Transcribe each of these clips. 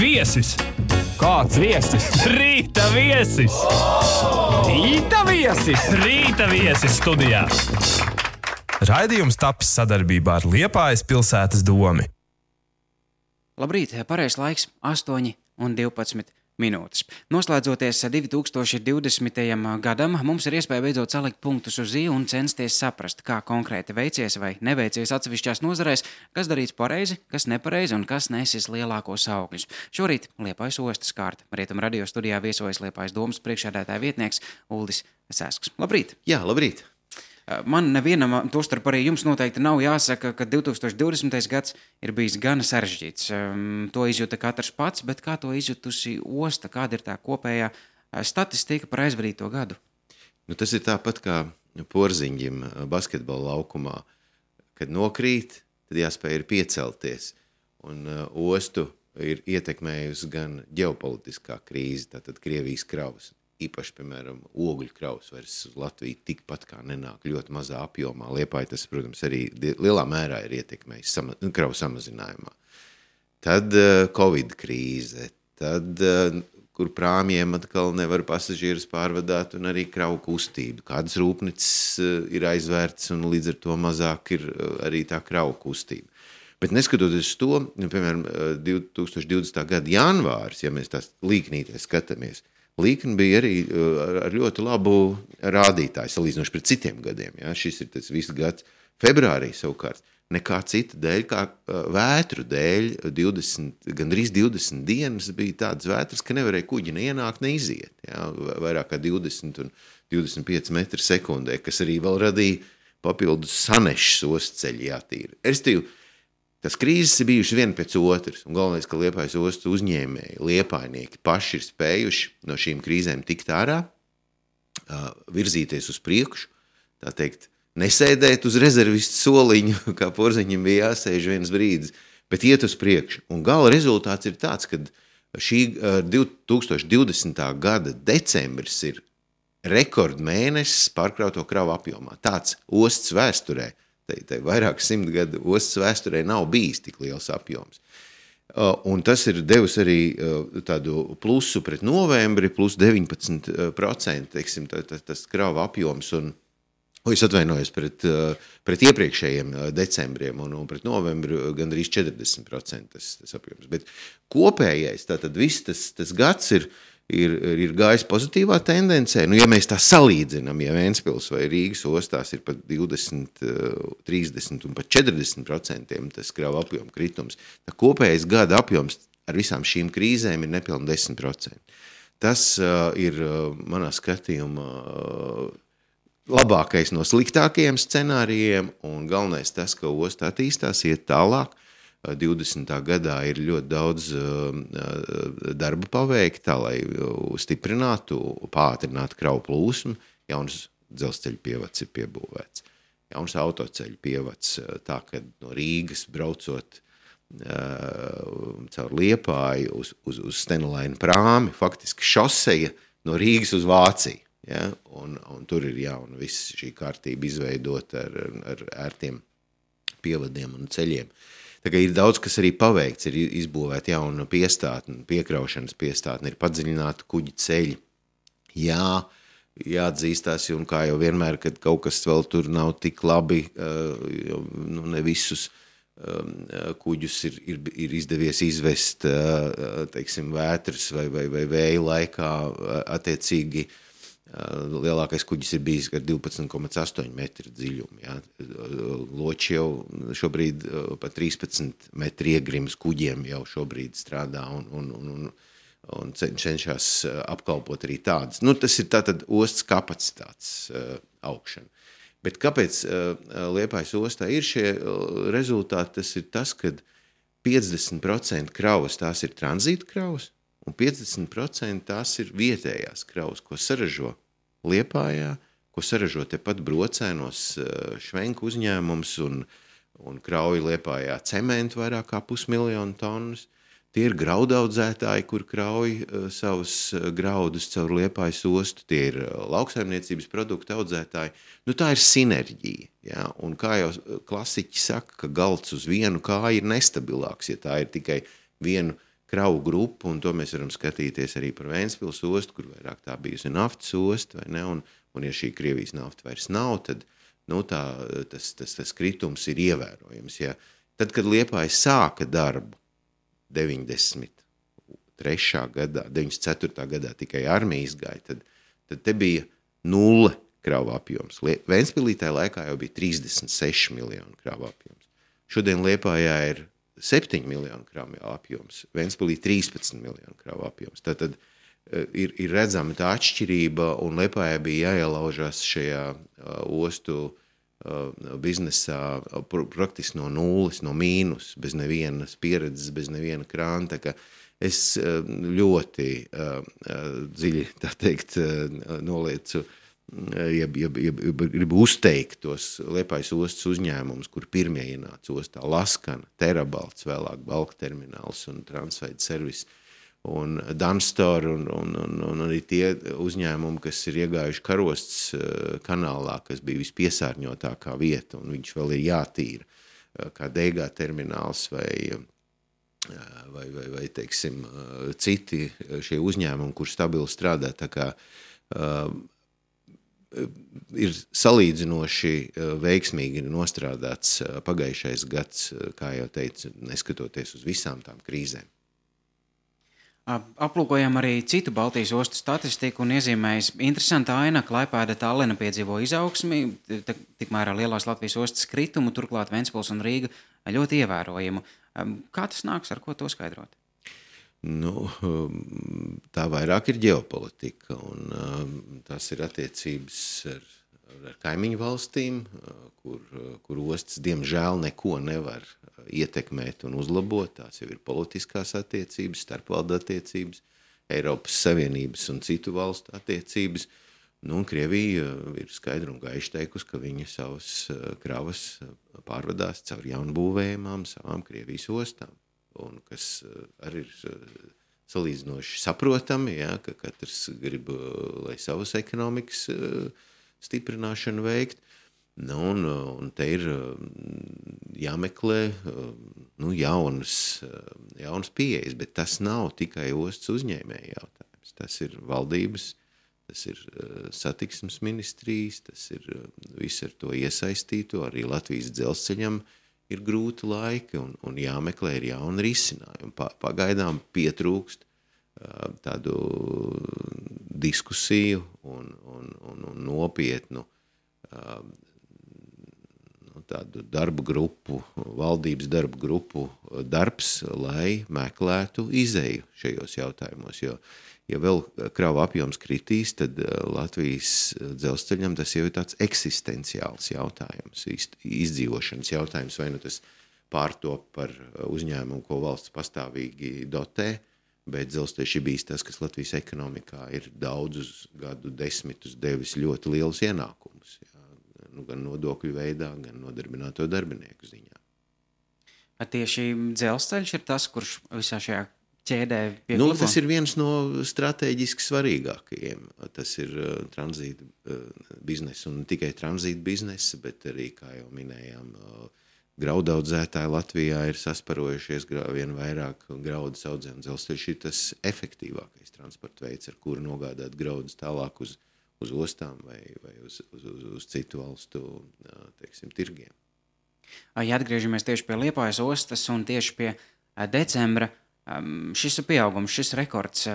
Viesis! Kāds viesis? Rīta viesis! Rīta viesis! Rīta viesis studijā! Raidījums tapis sadarbībā ar Liepājas pilsētas domi. Labrīt, pareizs laiks 8:12. Noslēdzoties 2020. gadam, mums ir iespēja beidzot salikt punktus uz i un censties saprast, kā konkrēti veicies vai neveicies atsevišķās nozarēs, kas darīts pareizi, kas nepareizi un kas nesis lielākos augļus. Šorīt Liepājas ostas kārta. Rietum radio studijā viesojas Liepājas domas priekšsēdētāja vietnieks Uldis Sēsks. Labrīt! Jā, labrīt! Man nevienam, tostarp arī jums noteikti nav jāsaka, ka 2020. gads ir bijis gan sarežģīts. To izjūta katrs pats, bet kā to izjutusi osta? Kāda ir tā kopējā statistika par aizvadīto gadu? Tas ir tāpat kā porziņģim basketbola laukumā. Kad nokrīt, tad jāspēj ir piecelties. Un ostu ir ietekmējusi gan ģeopolitiskā krīze, tātad Krievijas kravas. Īpaši, piemēram, ogļu kravas vairs uz Latviju tikpat kā nenāk ļoti mazā apjomā. Liepāja tas, protams, arī lielā mērā ir ietekmējis kravu samazinājumā. Tad Covid krīze, tad, kur prāmjiem atkal nevar pasažierus pārvadāt un arī kravu kustību. Kādas rūpnicis ir aizvērts un līdz ar to mazāk ir arī tā kravu kustība. Bet neskatoties to, piemēram, 2020. gada janvāris, ja mēs tās līknītēs skatāmies, līkni bija arī ar ļoti labu rādītāju, salīdzinoši pret citiem gadiem. Ja? Šis ir tas viss gads. Februārī savukārt nekā cita dēļ, kā vētru dēļ, gandrīz 20 dienas bija tādas vētras, ka nevarēja kuģi neienākt, neiziet. Ja? Vairāk kā 20 un 25 metri sekundē, kas arī vēl radīja papildus sanešas ostceļi jātīra. Restīvi, tas krīzes ir bijušas viena pēc otras, un galvenais, ka Liepājas ostas uzņēmēji, liepājnieki paši ir spējuši no šīm krīzēm tikt ārā, virzīties uz priekšu, tā teikt, nesēdēt uz rezervistu soliņu, kā porziņam bija jāsēž viens brīdis, bet iet uz priekšu. Un gala rezultāts ir tāds, ka šī 2020. gada decembris ir rekordmēnesis pārkrauto kravu apjomā. Tāds ostas vēsturē. Tai vairāk 100 gadu ostas vēsturē nav bijis tik liels apjoms. Un tas ir devis arī tādu plusu pret novembri, plus 19%, teiksim, tas krava apjoms, un es atvainojos pret iepriekšējiem decembriem, un pret novembri gandrīz 40% tas apjoms. Bet kopējais, tātad viss tas gads ir gājis pozitīvā tendencē. Ja mēs tā salīdzinām, ja Ventspils vai Rīgas ostās ir pat 20, 30 un pat 40% tas krava apjoma kritums, tā kopējais gada apjoms ar visām šīm krīzēm ir nepilni 10%. Tas ir manā skatījumā labākais no sliktākajiem scenārijiem, un galvenais tas, ka osta attīstās, iet tālāk. 20. gadā ir ļoti daudz darba paveikta, tā, lai stiprinātu, pātrinātu kravu plūsmu. Jauns dzelzceļa pievads ir piebūvēts. Jauns autoceļa pievads, tā, ka no Rīgas braucot caur Liepāju uz Stenelaina prāmi, faktiski šoseja no Rīgas uz Vāciju. Ja? Un tur ir jauna viss šī kārtība izveidota ar ērtiem pievadiem un ceļiem. Tā kā ir daudz, kas arī paveikts, ir izbūvēta jauna piestātne, piekraušanas piestātne, ir padziļināta kuģi ceļi. Jā, jāatzīstās, un kā jau vienmēr, kad kaut kas vēl tur nav tik labi, ne visus kuģus ir izdevies izvest, teiksim, vētras vai vēja laikā attiecīgi. Lielākais kuģis ir bijis ar 12,8 metru dziļumu. Ja. Loči jau šobrīd pa 13 metru iegrims kuģiem jau šobrīd strādā un cenšas apkalpot arī tādas. Tas ir tātad ostas kapacitātes augšana. Bet kāpēc Liepājas ostā ir šie rezultāti? Tas ir tas, ka 50% kravas tās ir tranzīta kravas, un 50% tās ir vietējās kravas, ko saražo Liepājā, ko saražo tepat Brocēnos švenku uzņēmums un krauj Liepājā cementu vairāk kā 500,000 tonnas. Tie ir graudaudzētāji, kur krauj savus graudus caur Liepājas ostu. Tie ir lauksaimniecības produktu audzētāji. Tā ir sinerģija. Ja? Un kā jau klasiķi saka, ka galds uz vienu kāju ir nestabilāks, ja tā ir tikai vienu kravu grupu, un to mēs varam skatīties arī par Ventspils ostu, kur vairāk tā bijusi naftas osta, vai ne, un ja šī Krievijas nafta vairs nav, tad tas kritums ir ievērojams. Ja. Tad, kad Liepāja sāka darbu 93. gadā, 94. gadā tikai armija izgāja, tad te bija 0 kravu apjoms. Ventspilī tajā laikā jau bija 36 miljonu kravu apjoms. Šodien Liepājā ir 7 miljonu kravu apjoms, Ventspilī 13 miljonu kravu apjoms. Tātad ir redzama tā atšķirība, un Liepājā bija jāielaužās šajā ostu biznesā praktiski no nulles, no mīnus, bez nevienas pieredzes, bez neviena krāna. Tā kā es ļoti dziļi, tā teikt, noliecu, gribu uzteikt tos Liepājas ostas uzņēmumus, kur pirmie ienāca ostā Laskana, Terabalts, vēlāk Balka termināls un Transveida servis, un Danstor un arī tie uzņēmumi, kas ir iegājuši Karostas kanālā, kas bija vispiesārņotākā vieta, un viņš vēl ir jātīra, kā Deigā termināls vai teiksim, citi šie uzņēmumi, kur stabili strādā, tā kā ir salīdzinoši veiksmīgi nostrādāts pagājušais gads, kā jau teicu, neskatoties uz visām tām krīzēm. Aplūkojam arī citu Baltijas ostu statistiku un iezīmējas interesanta aina, Klaipēda Tallina piedzīvo izaugsmi, tikmēr lielās Latvijas ostas kritumu, turklāt Ventspils un Rīga ļoti ievērojumu. Kā tas nāks, ar ko to skaidrot? Tā vairāk ir ģeopolitika, un tas ir attiecības ar kaimiņu valstīm, kur ostas diemžēl neko nevar ietekmēt un uzlabot. Tās jau ir politiskās attiecības, starpvaldu attiecības, Eiropas Savienības un citu valstu attiecības. Un Krievija ir skaidri un gaiši teikusi, ka viņa savas kravas pārvadās caur jaunbūvējumām savām Krievijas ostām. Un kas arī ir salīdzinoši saprotami, ja, ka katrs grib, lai savas ekonomikas stiprināšanu veikt. Un te ir jāmeklē jaunas pieejas, bet tas nav tikai ostas uzņēmēja jautājums. Tas ir valdības, tas ir satiksmes ministrijas, tas ir viss ar to iesaistīto, arī Latvijas dzelzceļam ir grūti laiki un jāmeklē ir jauni risinājumi. Pagaidām pietrūkst tādu diskusiju un nopietnu tādu darbu grupu, valdības darbu grupu darbs, lai meklētu izeju šajos jautājumos, jo ja vēl kravu apjoms kritīs, tad Latvijas dzelzceļam tas jau ir tāds eksistenciāls jautājums, izdzīvošanas jautājums, vai nu tas pārtop par uzņēmumu, ko valsts pastāvīgi dotē, bet dzelzceļš ir bijis tas, kas Latvijas ekonomikā ir daudzus gadu desmitus devis ļoti lielus ienākumus, gan nodokļu veidā, gan nodarbināto darbinieku ziņā. Tieši dzelzceļš ir tas, kurš visā šajā ķēdē pieklabo? Tas ir viens no strateģiski svarīgākajiem. Tas ir tranzīta biznesa un ne tikai tranzīta biznesa, bet arī, kā jau minējām, graudaudzētāji Latvijā ir sasparojušies vien vairāk graudus audzē, un dzelzceļš ir tas efektīvākais transporta veids, ar kuru nogādāt graudus tālāk uz ostām vai uz citu valstu, teiksim, tirgiem. Ja atgriežamies tieši pie Liepājas ostas un tieši pie decembra, šis pieaugums, šis rekords,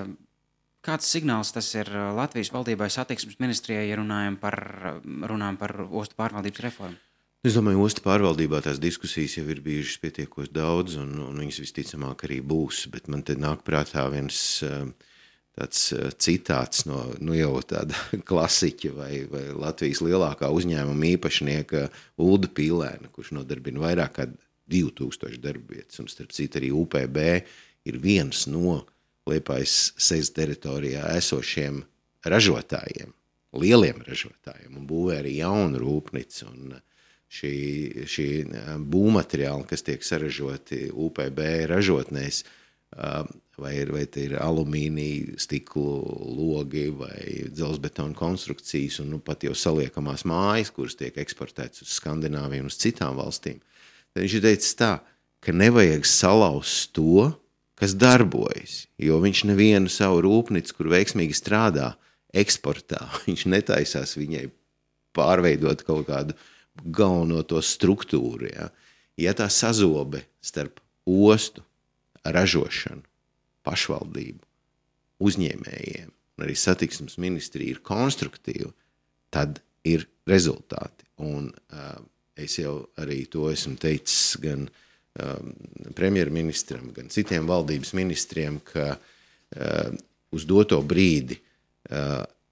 kāds signāls tas ir Latvijas valdībai satiksmes ministrijai, ja runājam par ostu pārvaldības reformu? Es domāju, ostu pārvaldībā tās diskusijas jau ir bijušas pietiekoši daudz, un viņas visticamāk arī būs, bet man te nāk prātā viens tāds citāts no jau tāda klasiķa vai Latvijas lielākā uzņēmuma īpašnieka Ulda Pīlēna, kurš nodarbina vairāk kā 2000 darbvietas, un starp citu arī UPB ir viens no Liepājas SEZ teritorijā esošiem ražotājiem, lieliem ražotājiem, un būvē arī jaunu rūpnicu, un šī būvmateriāli, kas tiek saražoti UPB ražotnēs, vai te ir alumīnija, stiklu logi vai dzelzbetona konstrukcijas un pat jau saliekamās mājas, kuras tiek eksportētas uz Skandināviju un uz citām valstīm. Tad viņš ir teicis tā, ka nevajag salauzt to, kas darbojas, jo viņš nevienu savu rūpnicu, kur veiksmīgi strādā, eksportā, viņš netaisās viņai pārveidot kaut kādu galveno to struktūru. Ja tā sazobe starp ostu, ražošanu, pašvaldību, uzņēmējiem un arī satiksmes ministrija ir konstruktīva, tad ir rezultāti. Un es jau arī to esmu teicis gan premjerministram, gan citiem valdības ministriem, ka uz doto brīdi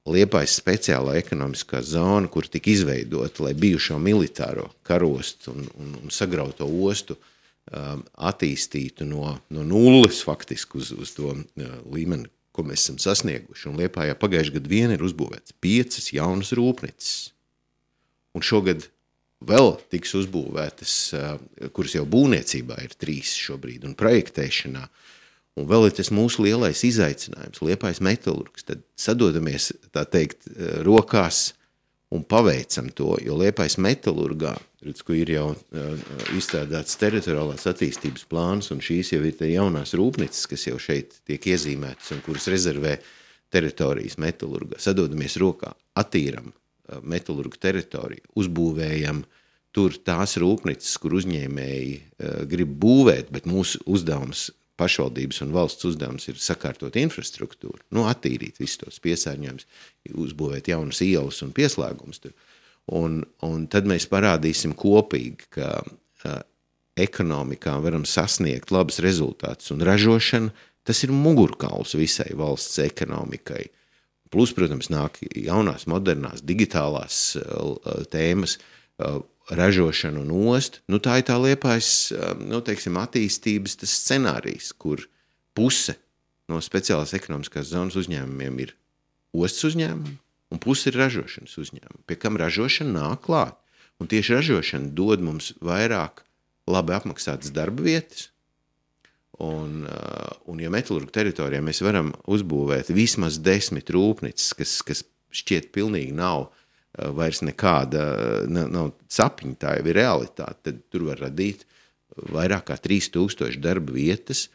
Liepājas speciālā ekonomiskā zona, kur tika izveidota, lai bijušo militāro karostu un sagrauto ostu attīstītu no nulles faktiski uz to līmeni, ko mēs esam sasnieguši. Un Liepājā pagājušajā gadu vien ir uzbūvēts 5 jaunas rūpnicis. Un šogad vēl tiks uzbūvētas, kuras jau būvniecībā ir 3 šobrīd, un projektēšanā. Un vēl ir tas mūsu lielais izaicinājums, Liepājas metalurgs. Tad sadodamies, tā teikt, rokās un paveicam to, jo Liepājas metalurgā, kur ir jau izstrādāts teritoriālās attīstības plāns, un šīs jau ir te jaunās rūpnicis, kas jau šeit tiek iezīmētas un kuras rezervē teritorijas metalurgā. Sadodamies rokā, attīram metalurgu teritoriju, uzbūvējam tur tās rūpnicis, kur uzņēmēji grib būvēt, bet mūsu uzdevums, pašvaldības un valsts uzdevums ir sakārtot infrastruktūru, attīrīt visus tos piesārņojumus, uzbūvēt jaunas ielas un pieslēgumus tur. Un tad mēs parādīsim kopīgi, ka ekonomikā varam sasniegt labus rezultātus, un ražošana, tas ir mugurkauls visai valsts ekonomikai. Plus, protams, nāk jaunās, modernās, digitālās tēmas, ražošana un ostu. Tā ir tā Liepājas, attīstības tas scenārijs, kur puse no speciālās ekonomiskās zonas uzņēmumiem ir ostas uzņēmumi, un puse ir ražošanas uzņēmumi, pie kam ražošana nāk klāt. Un tieši ražošana dod mums vairāk labi apmaksātas darba vietas, un ja metalurgu teritorijā mēs varam uzbūvēt vismaz 10 rūpnicis, kas šķiet pilnīgi nav vairs nekāda, nav sapņi, tā jau ir realitāte, tad tur var radīt vairāk kā 3000 darba vietas,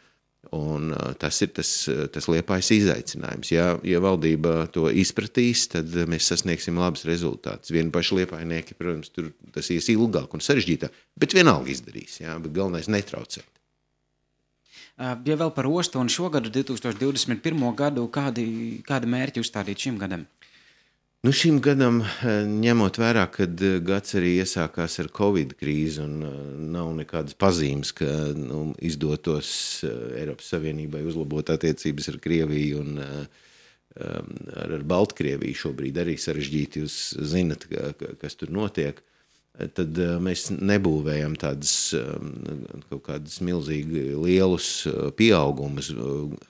un tas ir tas Liepājas izaicinājums. Ja valdība to izpratīs, tad mēs sasniegsim labus rezultātus. Vieni paši liepājnieki, protams, tur tas ies ilgāk un sarežģītāk, bet vienalga izdarīs, bet galvenais netraucēt. Ja vēl par ostu un šogadu 2021. gadu, kādi mērķi uzstādīt šim gadam? Šim gadam, ņemot vērā, kad gads arī iesākās ar Covid krīzi un nav nekādas pazīmes, ka izdotos Eiropas Savienībai uzlabot attiecības ar Krieviju un ar Baltkrieviju šobrīd arī sarežģīti, jūs zinat, kas tur notiek, tad mēs nebūvējam tādas kaut kādas milzīgi lielus pieaugumus.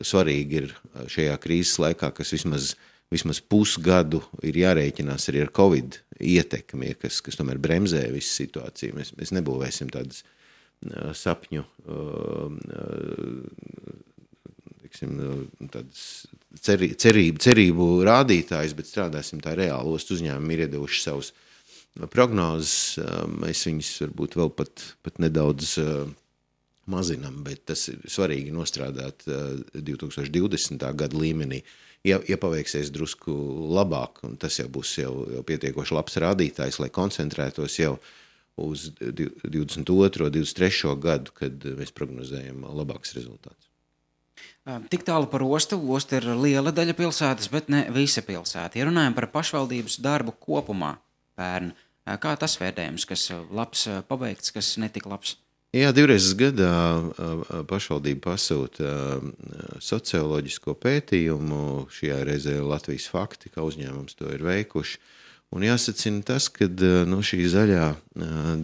Svarīgi ir šajā krīzes laikā, kas vismaz pusgadu ir jārēķinās arī ar Covid ietekmi, kas tomēr bremzē visu situāciju. Mēs nebūvēsim tādas sapņu, tādas cerību rādītājus, bet strādāsim tā reāli. Ostu uzņēmumi ir iedevuši savus prognozes, mēs viņus varbūt vēl pat nedaudz mazinam, bet tas ir svarīgi nostrādāt 2020. Gada līmenī. Ja paveiksies drusku labāk, un tas jau būs jau pietiekoši labs rādītājs, lai koncentrētos jau uz 22. 23. gadu, kad mēs prognozējam labāks rezultāts. Tik tālu par ostu. Osta ir liela daļa pilsētas, bet ne visa pilsēta. Ja runājam par pašvaldības darbu kopumā pērn, kā tas vērtējums, kas labs pabeigts, kas netika labs? Jā, 2 reizes gadā pašvaldība pasūta socioloģisko pētījumu, šajā reizē Latvijas fakti, kā uzņēmums to ir veikuši. Un jāsacina tas, ka šī zaļā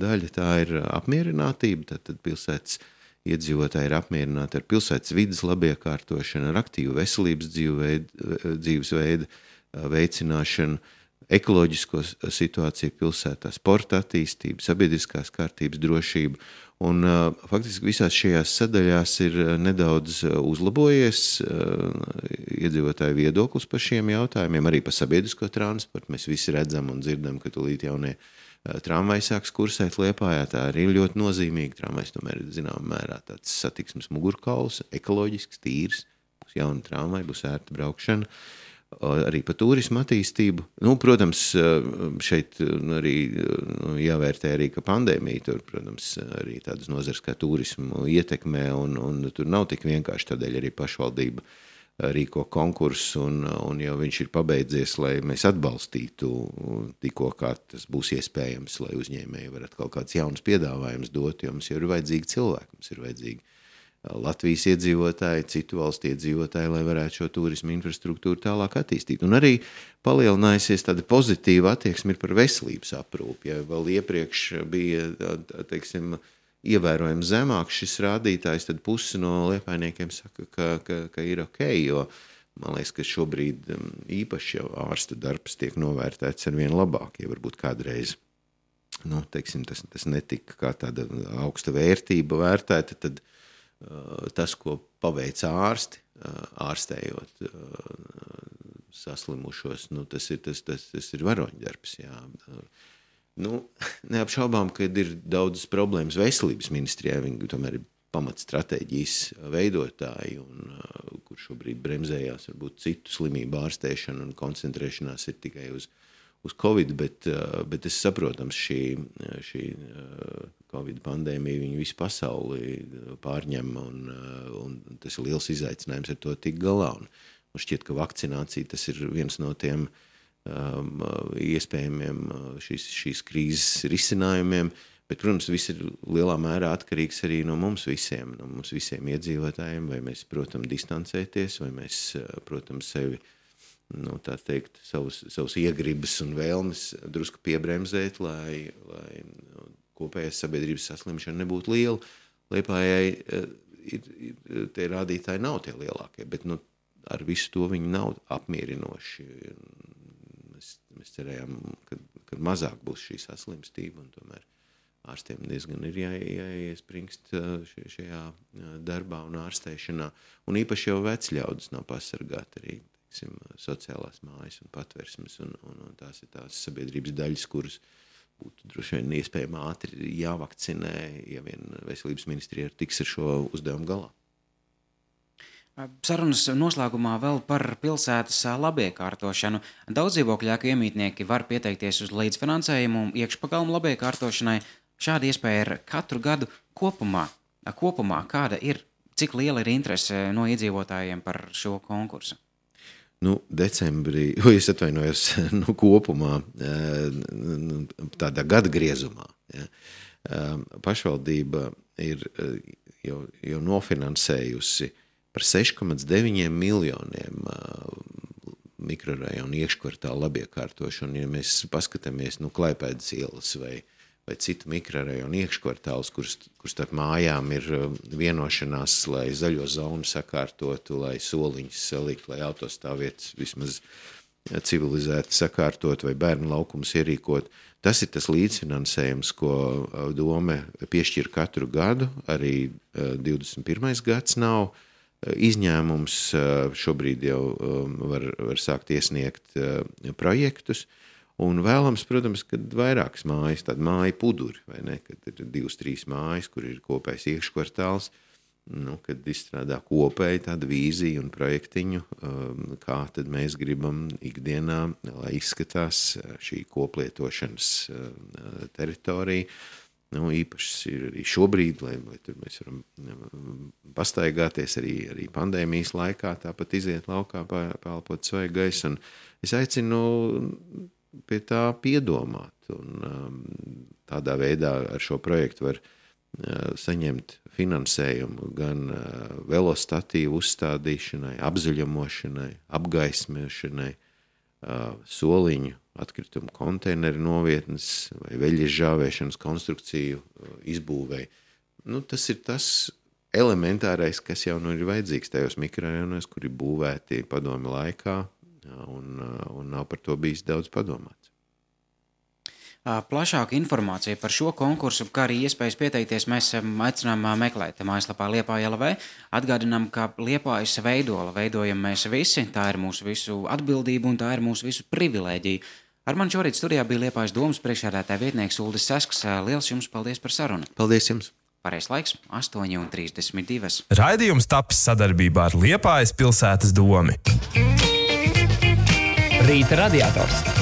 daļa tā ir apmierinātība, tad pilsētas iedzīvotāji ir apmierināti ar pilsētas vides labiekārtošanu, ar aktīvu veselības dzīvesveidu veicināšanu, ekoloģisko situāciju pilsētā, sporta attīstību, sabiedriskās kārtības drošību. Un faktiski visās šajās sadaļās ir nedaudz uzlabojies iedzīvotāju viedoklis par šiem jautājumiem, arī par sabiedrisko transportu. Mēs visi redzam un dzirdam, ka tūlīt jaunie tramvajs sāks kursēt Liepājā, tā arī ir ļoti nozīmīga. Tramvajs tomēr ir zināmā mērā tāds satiksmes mugurkauls, ekoloģisks, tīrs, būs jauna tramvaja, būs ērta braukšana. Arī par turismu attīstību. Protams, šeit arī jāvērtē arī, ka pandēmija tur, protams, arī tādas nozares kā turismu ietekmē, un tur nav tik vienkārši, tādēļ arī pašvaldība rīko konkursu, un jau viņš ir pabeidzies, lai mēs atbalstītu tikko, kā tas būs iespējams, lai uzņēmēji varat kaut kāds jauns piedāvājums dot, jo mums jau ir vajadzīgi cilvēki, mums ir vajadzīgi Latvijas iedzīvotāji, citu valstu iedzīvotāji, lai varētu šo turismu infrastruktūru tālāk attīstīt. Un arī palielinājusies tāda pozitīva attieksme ir par veselības aprūpi. Ja vēl iepriekš bija, teiksim, ievērojami zemāks šis rādītājs, tad pusi no liepājniekiem saka, ka ir ok, jo man liekas, ka šobrīd īpaši jau ārsta darbs tiek novērtēts ar vien labāk, ja varbūt kādreiz teiksim, tas netika kā tāda augsta vērtība vērtēta, tad tas, ko paveic ārsti, ārstējot saslimušos, tas ir varoņdarbs. Jā. Neapšaubām, ka ir daudzas problēmas veselības ministrijā, viņi tomēr ir pamatstratēģijas veidotāji, kur šobrīd bremzējās varbūt citu slimību ārstēšanu un koncentrēšanās ir tikai uz Covid, bet es saprotams, šī Covid pandēmija viņu visu pasauli pārņem, un tas ir liels izaicinājums ar to tik galā. Un šķiet, ka vakcinācija tas ir viens no tiem iespējamiem šīs krīzes risinājumiem, bet, protams, viss ir lielā mērā atkarīgs arī no mums visiem iedzīvotājiem, vai mēs, protams, distancēties, vai mēs, protams, sevi tā teikt, savus iegribas un vēlmes drusku piebremzēt, lai kopējās sabiedrības saslimšana nebūtu liela. Liepājai tie rādītāji nav tie lielākie, bet ar visu to viņi nav apmierinoši. Mēs cerējām, ka mazāk būs šī saslimstība, un tomēr ārstiem diezgan ir jāiespringst šajā darbā un ārstēšanā. Un īpaši jau vecļaudis nav pasargāti arī sociālās mājas un patversmes, un tās ir tās sabiedrības daļas, kuras būtu droši vien iespējami ātri jāvakcinē, ja vien veselības ministrija tiks ar šo uzdevumu galā. Sarunas noslēgumā vēl par pilsētas labiekārtošanu. Daudz dzīvokļu ēku iemītnieki var pieteikties uz līdzfinansējumu iekšpagalmu labiekārtošanai. Šāda iespēja ir katru gadu kopumā. Kāda ir, cik liela ir interese no iedzīvotājiem par šo konkursu? Decembrī, es atvainojos, kopumā, tādā gada griezumā. Ja. Pašvaldība ir jau nofinansējusi par 6,9 miljoniem mikrorajonu iekškvartālu labiekārtošanu. Ja mēs paskatāmies, Klaipēdas ielas vai citu mikrorajonu iekškvartālus, kur starp mājām ir vienošanās, lai zaļo zonu sakārtotu, lai soliņus salikt, lai autostāvvietas vismaz civilizēti sakārtot vai bērnu laukums ierīkot. Tas ir tas līdzfinansējums, ko dome piešķir katru gadu, arī 21. gads nav izņēmums. Šobrīd jau var sākt iesniegt projektus. Un vēlams, protams, kad vairākas mājas, tāda māja puduri, vai ne, kad ir 2-3 mājas, kur ir kopējs iekškvartāls, kad izstrādā kopēji tādu vīziju un projektiņu, kā tad mēs gribam ikdienā, lai izskatās šī koplietošanas teritorija. Īpaši ir arī šobrīd, lai tur mēs varam pastaigāties arī pandēmijas laikā, tāpat iziet laukā, pēlpot svaigu gaisu. Un es aicinu pie tā piedomāt, un tādā veidā ar šo projektu var saņemt finansējumu gan velostatīvu uzstādīšanai, apzaļumošanai, apgaismēšanai, soliņu, atkritumu konteineru novietnes vai veļas žāvēšanas konstrukciju izbūvei. Tas ir tas elementārais, kas jau ir vajadzīgs tajos mikrorajonos, kuri būvēti padomi laikā, un nav par to bijis daudz padomāts. Plašāka informācija par šo konkursu, kā arī iespējas pieteikties, mēs aicinām meklēt mājaslapā Liepāja LV. Atgādinām, ka Liepājas veidola veidojam mēs visi, tā ir mūsu visu atbildība un tā ir mūsu visu privilēģija. Ar mani šorīt studijā bija Liepājas domas priekšsēdētāja vietnieks Uldis Sasks. Liels jums paldies par sarunu. Paldies jums! Pareizais laiks 8:32. Raidījums tapis sadarbībā ar Liepājas pilsētas domi. Rīta radiators.